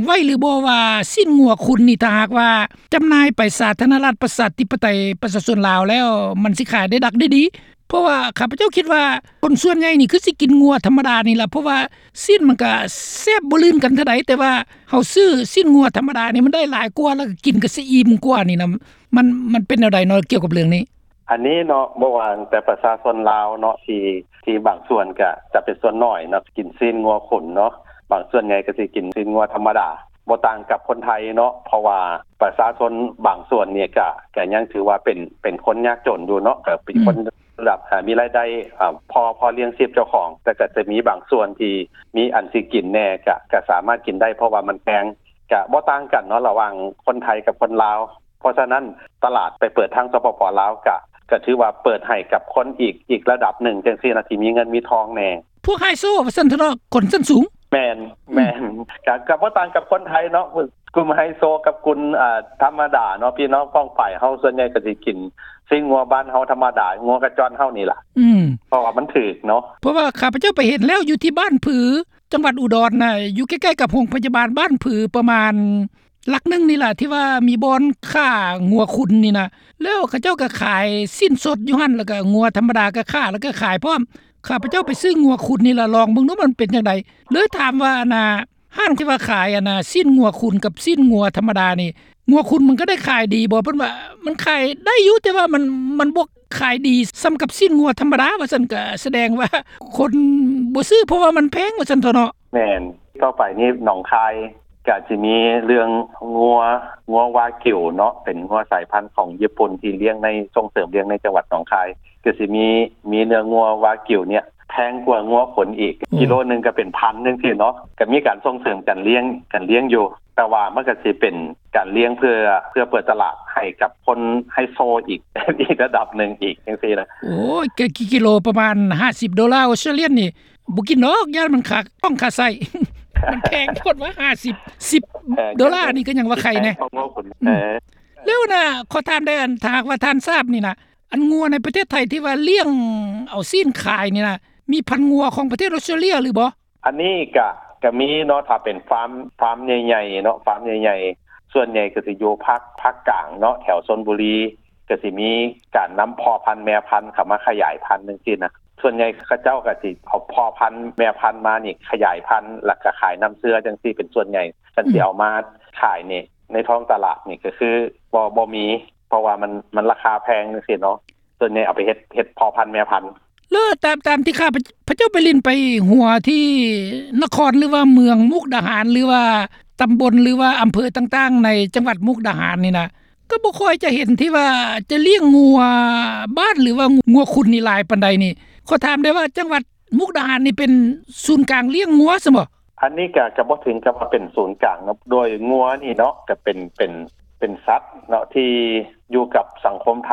ໄວ້ຫຼືບໍ່ວ່າ ຊີ້ນງົວຂຸນນີ້ ຖ້າຫາກວ່າຈຳໜ່າຍໄປສາທາລະນະລັດປະຊາທິປະໄຕປະຊາຊົນລາວແລ້ວ ມັນຊິຂາຍໄດ້ດັກໄດ້ດີ? ເພາະວ່າຂ້າພະເຈົ້າຄິດວ່າຄົນສ່ວນໃຫຍ່ນີ້ຄືຊິກິນງົວທຳມະດານີ້ລະ ເພາະວ່າຊີ້ນມັນກະແຊບບໍ່ລື່ນກັນເທົ່າໃດ ແຕ່ວ່າເຮົາຊື້ຊີ້ນງົວທຳມະດານີ້ມັນໄດ້ຫຼາຍກວ່າ ແລ້ວກະກິນກະຊິອີ່ມກວ່ານີ້ນະ. ມັນ ມັນເປັນແນວໃດເນາະ ກ່ຽວກັບເລື່ອງນີ້? ອັນນີ້ເນາະ ບໍ່ວ່າແຕ່ປະຊາຊົນລາວເນາະ ທີ່ ທີ່ບາງສ່ວນກະຈະເປັນສ່ວນໜ້ອຍເນາະ ກິນຊີ້ນງົວຂຸນເນາະ ບາງສ່ວນໃຫຍ່ກະຊິກິນຊີ້ນງົວທຳມະດາ ບໍ່ຕ່າງກັບຄົນໄທເນາະ ເພາະວ່າປະຊາຊົນບາງສ່ວນນີ້ກະ ກະຍັງຖືວ່າເປັນ ເປັນຄົນຍາກຈົນຢູ່ເນາະ ກະເປັນຄົນ ລະດັບ ອາ ມີລາຍໄດ້ ອາ ພໍ ພໍລ້ຽງຊີບເຈົ້າຂອງ ແຕ່ກະຈະມີບາງສ່ວນທີ່ມີອັນຊິກິນແດ່ ກະ ກະສາມາດກິນໄດ້ ເພາະວ່າມັນແພງ ກະບໍ່ຕ່າງກັນເນາະ ລະຫວ່າງຄົນໄທກັບຄົນລາວ. ເພາະສະນັ້ນຕະຫຼາດໄປເປີດທາງ ສປປ ລາວ ກະ ກະຖືວ່າເປີດໃຫ້ກັບຄົນອີກ ອີກລະດັບໜຶ່ງຈັ່ງຊີ້ນະ ທີ່ມີເງິນມີທອງແດ່. ພວກໄຮໂຊວ່າຊັ້ນເຖາະເນາະ ຄົນຊັ້ນສູງ. ແມ່ນ ແມ່ນ ກະ ກະບໍ່ຕ່າງກັບຄົນໄທເນາະ ກຸ່ມໄຮໂຊກັບກຸ່ມ ອາ ທຳມະດາເນາະ ພີ່ນ້ອງປ້ອງປາຍເຮົາສ່ວນໃຫຍ່ກະຊິກິນຊີ້ນງົວບ້ານເຮົາທຳມະດາ ງົວກະຈ້ອນເຮົານີ້ລະ ອືມ ເພາະວ່າມັນຖືກເນາະ. ເພາະວ່າຂ້າພະເຈົ້າໄປເຫັນແລ້ວ ຢູ່ທີ່ບ້ານຜື ຈັງຫວັດອຸດອນນະ ຢູ່ໃກ້ໆກັບໂຮງພະຍາບານບ້ານຜື ປະມານຫຼັກໜຶ່ງນີ້ລະ ທີ່ວ່າມີບ່ອນຂ້າງົວຂຸນນີ້ນະ ແລ້ວເຂົາເຈົ້າກະຂາຍຊີ້ນສົດຢູ່ຫັ້ນ ແລ້ວກະງົວທຳມະດາກະຂ້າ ແລ້ວກະຂາຍພ້ອມ. ຂ້າພະເຈົ້າໄປຊື້ງົວຂຸນນີ້ລະ ລອງເບິ່ງດູມັນເປັນຈັ່ງໃດ ເລີຍຖາມວ່າ ອັນນ່າ ຮ້ານທີ່ວ່າຂາຍ ອັນນ່າ ຊີ້ນງົວຂຸນກັບຊີ້ນງົວທຳມະດານີ້ ງົວຂຸນມັນກະໄດ້ຂາຍດີບໍ່? ເພິ່ນວ່າມັນຂາຍໄດ້ຢູ່ ແຕ່ວ່າມັນ ມັນບໍ່ຂາຍດີສ່ຳກັບຊີ້ນງົວທຳມະດາວ່າຊັ້ນ ກະສະແດງວ່າຄົນບໍ່ຊື້ ເພາະວ່າມັນແພງວ່າຊັ້ນເຖາະເນາະ. ແມ່ນ ຕໍ່ໄປນີ້ໜອງຄາຍກະຊິມີເລື່ອງງົວ ງົວວາກິວເນາະ ເປັນງົວສາຍພັນຂອງຍີ່ປຸ່ນທີ່ລ້ຽງໃນ ສົ່ງເສີມລ້ຽງໃນຈັງຫວັດໜອງຄາຍ ກະຊິມີ ມີເນື້ອງົວວາກິວເນຍ ແພງກວ່າງົວຂົນອີກ ອືມ ກິໂລໜຶ່ງກໍເປັນພັນຈັ່ງຊີ້ເນາະ ກໍມີການສົ່ງເສີມການລ້ຽງ ການລ້ຽງຢູ່ ແຕ່ວ່າມັນກໍຊິເປັນການລ້ຽງເພື່ອ ເພື່ອເປີດຕະຫຼາດໃຫ້ກັບຄົນໄຮໂຊອີກ ອີກລະດັບໜຶ່ງອີກຈັ່ງຊີ້ນະ. ໂອ້ຍ ກະກິໂລປະມານຫ້າສິບໂດລາອົດສະຕຣາເລຍນີ້ ບໍ່ກິນດອກ ຢ້ານມັນຄາ ຕ້ອງຄາໄສ້ ມັນແພງໂພດວ່າ ຫ້າສິບ ສິບ ເອີ ໂດລານີ້ກໍຍັງວ່າໄຄແດ່ ແລ້ວນະ ຂໍຖາມໄດ້ ອັນ ຖ້າຫາກວ່າທ່ານຊາບນີ້ນະ ອັນງົວໃນປະເທດໄທທີ່ວ່າລ້ຽງເອົາຊີ້ນຂາຍນີ້ນະ ມີພັນງົວຂອງປະເທດອົດສະຕຣາເລຍຫຼືບໍ່? ອັນນີ້ກະ ກະມີເນາະ ຖ້າເປັນຟາມ ຟາມໃຫຍ່ໆເນາະ ຟາມໃຫຍ່ໆ ສ່ວນໃຫຍ່ກໍຊິຢູ່ພາກ ພາກກາງເນາະ ແຖວຊົນບູລີ ກໍຊິມີການນຳພໍ່ພັນແມ່ພັນເຂົ້າມາຂະຫຍາຍພັນຈັ່ງຊີ້ນະ. ສ່ວນໃຫຍ່ເຂົາເຈົ້າກໍຊິເອົາພໍ່ພັນແມ່ພັນມານີ້ຂະຫຍາຍພັນ ແລ້ວກໍຂາຍນ້ຳເຊື້ອຈັ່ງຊີ້ເປັນສ່ວນໃຫຍ່. ຄັນຊິເອົາມາຂາຍນີ້ ໃນທ້ອງຕະຫຼາດນີ້ກໍຄືບໍ່ ບໍ່ມີ ເພາະວ່າມັນ ມັນລາຄາແພງຈັ່ງຊີ້ເນາະ. ສ່ວນໃຫຍ່ເອົາໄປເຮັດ ເຮັດພໍ່ພັນແມ່ພັນ. ແລ້ວຕາມ ຕາມທີ່ຂ້າພະເຈົ້າໄປຫຼິ້ນໄປຫົວທີ່ນະຄອນ ຫຼືວ່າເມືອງມຸກດາຫານ ຫຼືວ່າຕຳບົນ ຫຼືວ່າອຳເພີຕ່າງໆໃນຈັງຫວັດມຸກດາຫານນີ້ນະ ກໍບໍ່ຄ່ອຍຈະເຫັນທີ່ວ່າຈະລ້ຽງງົວບ້ານ ຫຼືວ່າງົວຂຸນນີ້ຫຼາຍປານໃດນີ້. ຂໍຖາມໄດ້ວ່າ ຈັງຫວັດມຸກດາຫານນີ້ເປັນສູນກາງລ້ຽງງົວຊັ້ນບໍ່? ອັນນີ້ກະ ກະບໍ່ເຖິງກັບວ່າເປັນສູນກາງເນາະ ໂດຍງົວນີ້ເນາະ ກະເປັນ ເປັນ ເປັນສັດເນາະ ທີ່ຢູ່ກັບສັງຄົມໄທ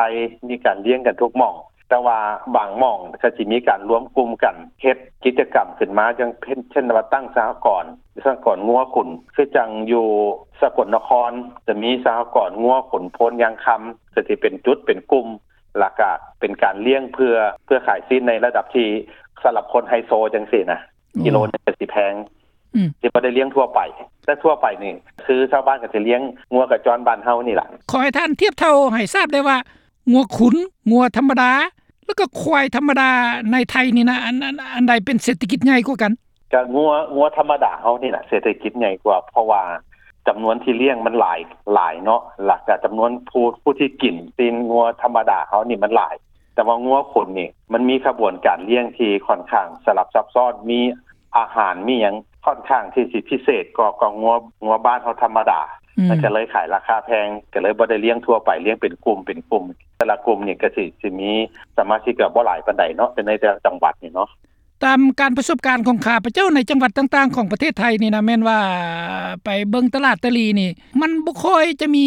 ມີການລ້ຽງກັນທຸກໝ່ອງ ແຕ່ວ່າບາງໝ່ອງກໍຊິມີການລວມກຸ່ມກັນເຮັດກິດຈະກຳຂຶ້ນມາ ຢ່າງເຊັ່ນ ເຊັ່ນວ່າຕັ້ງສະຫະກອນ ສະຫະກອນງົວຂຸນ ຄືຈັ່ງຢູ່ສະກົນນະຄອນ ຈະມີສະຫະກອນງົວຂຸນໂພນຍາງຄຳ ກໍຊິເປັນຈຸດເປັນກຸ່ມ ແລ້ວກະເປັນການລ້ຽງເພື່ອ ເພື່ອຂາຍຊີ້ນໃນລະດັບທີ່ສຳລັບຄົນໄຮໂຊຈັ່ງຊີ້ນະ. ອືມ ກິໂລໜຶ່ງກໍຊິແພງ ອືມ ຊິບໍ່ໄດ້ລ້ຽງທົ່ວໄປ ແຕ່ທົ່ວໄປນີ້ຄືຊາວບ້ານກໍຊິລ້ຽງງົວກະຈ້ອນບ້ານເຮົານີ້ລະ. ຂໍໃຫ້ທ່ານທຽບເທົ່າໃຫ້ຊາບໄດ້ວ່າ ງົວຂຸນ, ງົວທຳມະດາ ແລ້ວກໍຄວາຍທຳມະດາໃນໄທນີ້ນະ ອັນ ອັນ ອັນໃດເປັນເສດຖະກິດໃຫຍ່ກວ່າກັນ? ກະງົວ ງົວທຳມະດາເຮົານີ້ນະ ເສດຖະກິດໃຫຍ່ກວ່າ ເພາະວ່າຈຳນວນທີ່ລ້ຽງມັນຫຼາຍ ຫຼາຍເນາະ ແລ້ວກະຈຳນວນຜູ້ ຜູ້ທີ່ກິນຊີ້ນງົວທຳມະດາເຮົານີ້ມັນຫຼາຍ. ແຕ່ວ່າງົວຂຸນນີ້ ມັນມີຂະບວນການລ້ຽງທີ່ຂ້ອນຂ້າງສະຫຼັບຊັບຊ້ອນ ມີອາຫານ ມີຫຍັງຂ້ອນຂ້າງທີ່ຊິພິເສດກວ່າ ກວ່າງົວ ງົວບ້ານເຮົາທຳມະດາ ອືມ ມັນກໍເລີຍຂາຍລາຄາແພງ ກໍເລີຍບໍ່ໄດ້ລ້ຽງທົ່ວໄປ ລ້ຽງເປັນກຸ່ມເປັນກຸ່ມ ແຕ່ລະກຸ່ມນີ້ກໍຊິ ຊິມີສະມາຊິກກໍບໍ່ຫຼາຍປານໃດເນາະ ແຕ່ໃນແຕ່ລະຈັງຫວັດນີ້ເນາະ. ຕາມການປະສົບການຂອງຂ້າພະເຈົ້າໃນຈັງຫວັດຕ່າງໆຂອງປະເທດໄທນີ້ນະ ແມ່ນວ່າໄປເບິ່ງຕະຫຼາດຕະຫຼີ່ນີ້ ມັນບໍ່ຄ່ອຍຈະມີ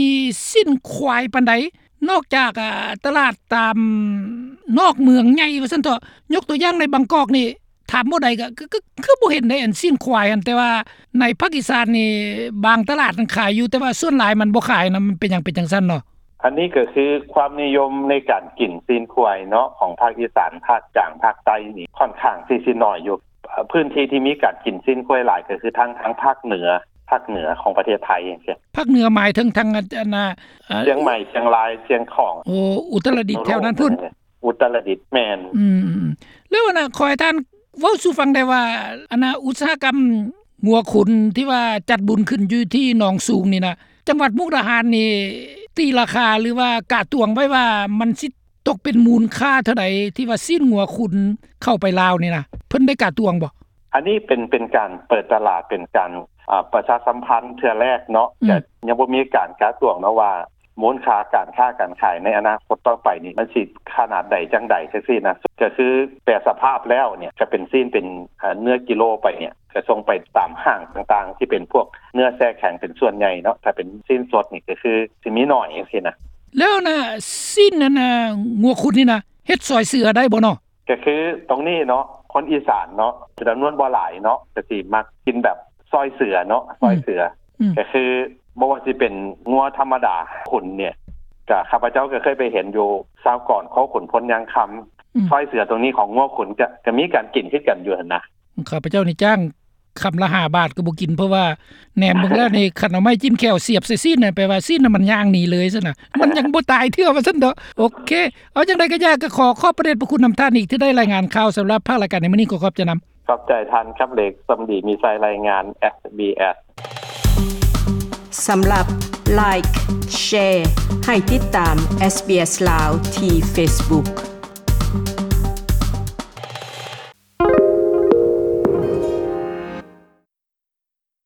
ຊີ້ນຄວາຍປານໃດ ນອກຈາກ ອາ ຕະຫຼາດຕາມນອກເມືອງໃຫຍ່ວ່າຊັ້ນເຖາະ. ຍົກຕົວຢ່າງໃນບາງກອກນີ້ ຖາມໝໍໃດກໍ ກໍ ກໍຄືບໍ່ເຫັນໃດ ອັນຊີ້ນຄວາຍຫັ້ນ ແຕ່ວ່າໃນພາກອີສານນີ້ ບາງຕະຫຼາດນັ້ນຂາຍຢູ່ ແຕ່ວ່າສ່ວນຫຼາຍມັນບໍ່ຂາຍນະ. ມັນເປັນຫຍັງເປັນຈັ່ງຊັ້ນເນາະ? ອັນນີ້ກໍຄືຄວາມນິຍົມໃນການກິນຊີ້ນຄວາຍເນາະ ຂອງພາກອີສານ, ພາກກາງ, ພາກໃຕ້ນີ້ຂ້ອນຂ້າງທີ່ຊິໜ້ອຍຢູ່. ເອີ ພື້ນທີ່ທີ່ມີການກິນຊີ້ນຄວາຍຫຼາຍກໍຄືທາງ ທາງພາກເໜືອ, ພາກເໜືອຂອງປະເທດໄທຈັ່ງຊີ້. ພາກເໜືອໝາຍເຖິງທາງ ອັນ ອັນ ອາ ເຊີງໃໝ່, ຊຽງລາຍ, ຊຽງຂອງ, ໂອ້ ອຸດຕະລະດິດ ແຖວນັ້ນພຸ້ນ. ອຸດຕະລະດິດ ແມ່ນ. ອືມ ແລ້ວ ອັນນະ ຂໍໃຫ້ທ່ານເວົ້າສູ່ຟັງໄດ້ວ່າ ອັນນະ ອຸດສາຫະກຳງົວຂຸນທີ່ວ່າຈັດບຸນຂຶ້ນຢູ່ທີ່ໜອງສູງນີ້ນະ ຈັງຫວັດມຸກດາຫານນີ້ ຕີລາຄາ ຫຼືວ່າກະຕວງໄວ້ວ່າ ມັນຊິຕົກເປັນມູນຄ່າເທົ່າໃດ ທີ່ວ່າຊີ້ນງົວຂຸນເຂົ້າໄປລາວນີ້ນະ ເພິ່ນໄດ້ກະຕວງບໍ່? ອັນນີ້ເປັນ ເປັນການເປີດຕະຫຼາດ ເປັນການ ອາ ປະຊາສຳພັນເທື່ອແລກເນາະ. ອືມ ກໍຍັງບໍ່ມີການກະຕວງເນາະວ່າ ມູນຄ່າການຄ້າການຂາຍໃນອະນາຄົດຕໍ່ໄປນີ້ ມັນຊິຂະໜາດໃດຈັ່ງໃດຈັ່ງຊີ້ນະ. ກໍຄືແປສະພາບແລ້ວນີ້ ກໍເປັນຊີ້ນເປັນ ເອີ ເນື້ອກິໂລໄປນີ້ ກໍສົ່ງໄປຕາມຫ້າງຕ່າງໆ ທີ່ເປັນພວກເນື້ອແຊ່ແຂງເປັນສ່ວນໃຫຍ່ເນາະ. ຖ້າເປັນຊີ້ນສົດນີ້ ກໍຄືຊິມີໜ້ອຍຈັ່ງຊີ້ນະ. ແລ້ວນະ ຊີ້ນນັ້ນນະ ງົວຂຸນນີ້ນະ ເຮັດຊອຍເສືອໄດ້ບໍ່ເນາະ? ກໍຄືຕົງນີ້ເນາະ ຄົນອີສານເນາະ ຈຳນວນບໍ່ຫຼາຍເນາະ ກໍຊິມັກກິນແບບຊອຍເສືອເນາະ ອືມ ຊອຍເສືອ. ອືມ ກໍຄືບໍ່ວ່າຊິເປັນງົວທຳມະດາຂຸນນີ້ ກໍຂ້າພະເຈົ້າກໍເຄີຍໄປເຫັນຢູ່ຊາວກອນ ຄອກຂຸນພົນຍາງຄຳ. ອືມ ຊອຍເສືອຕົງນີ້ຂອງງົວຂຸນ ກໍ ກໍມີການກິນຄືກັນຢູ່ຫັ້ນນະ. ຂ້າພະເຈົ້ານີ້ຈ້າງຄຳລະຫ້າບາດກໍບໍ່ກິນ ເພາະວ່າແນມເບິ່ງແລ້ວນີ້ ຄັນເອົາໄມ້ຈິ້ມແຂ້ວສຽບໃສ່ຊີ້ນນະ ແປວ່າຊີ້ນນະມັນຍ່າງໜີເລີຍຊັ້ນນະ ມັນຍັງບໍ່ຕາຍເທື່ອວ່າຊັ້ນເຖາະ. ໂອເຄ ເອົາຈັ່ງໃດກໍຢ່າ ກໍຂໍຂອບພະເດດພະຄຸນນຳທ່ານອີກ ທີ່ໄດ້ລາຍງານຂ່າວສຳລັບພາກລາຍການໃນມື້ນີ້ ຂໍຂອບໃຈນຳ. ຂອບໃຈທ່ານຄຳເລັກ ສົມດີມີໄຊ ລາຍງານ ເອສບີເອສ. ສຳລັບ Like Share ໃຫ້ຕິດຕາມ ເອສບີເອສ ລາວ ທີ່ Facebook.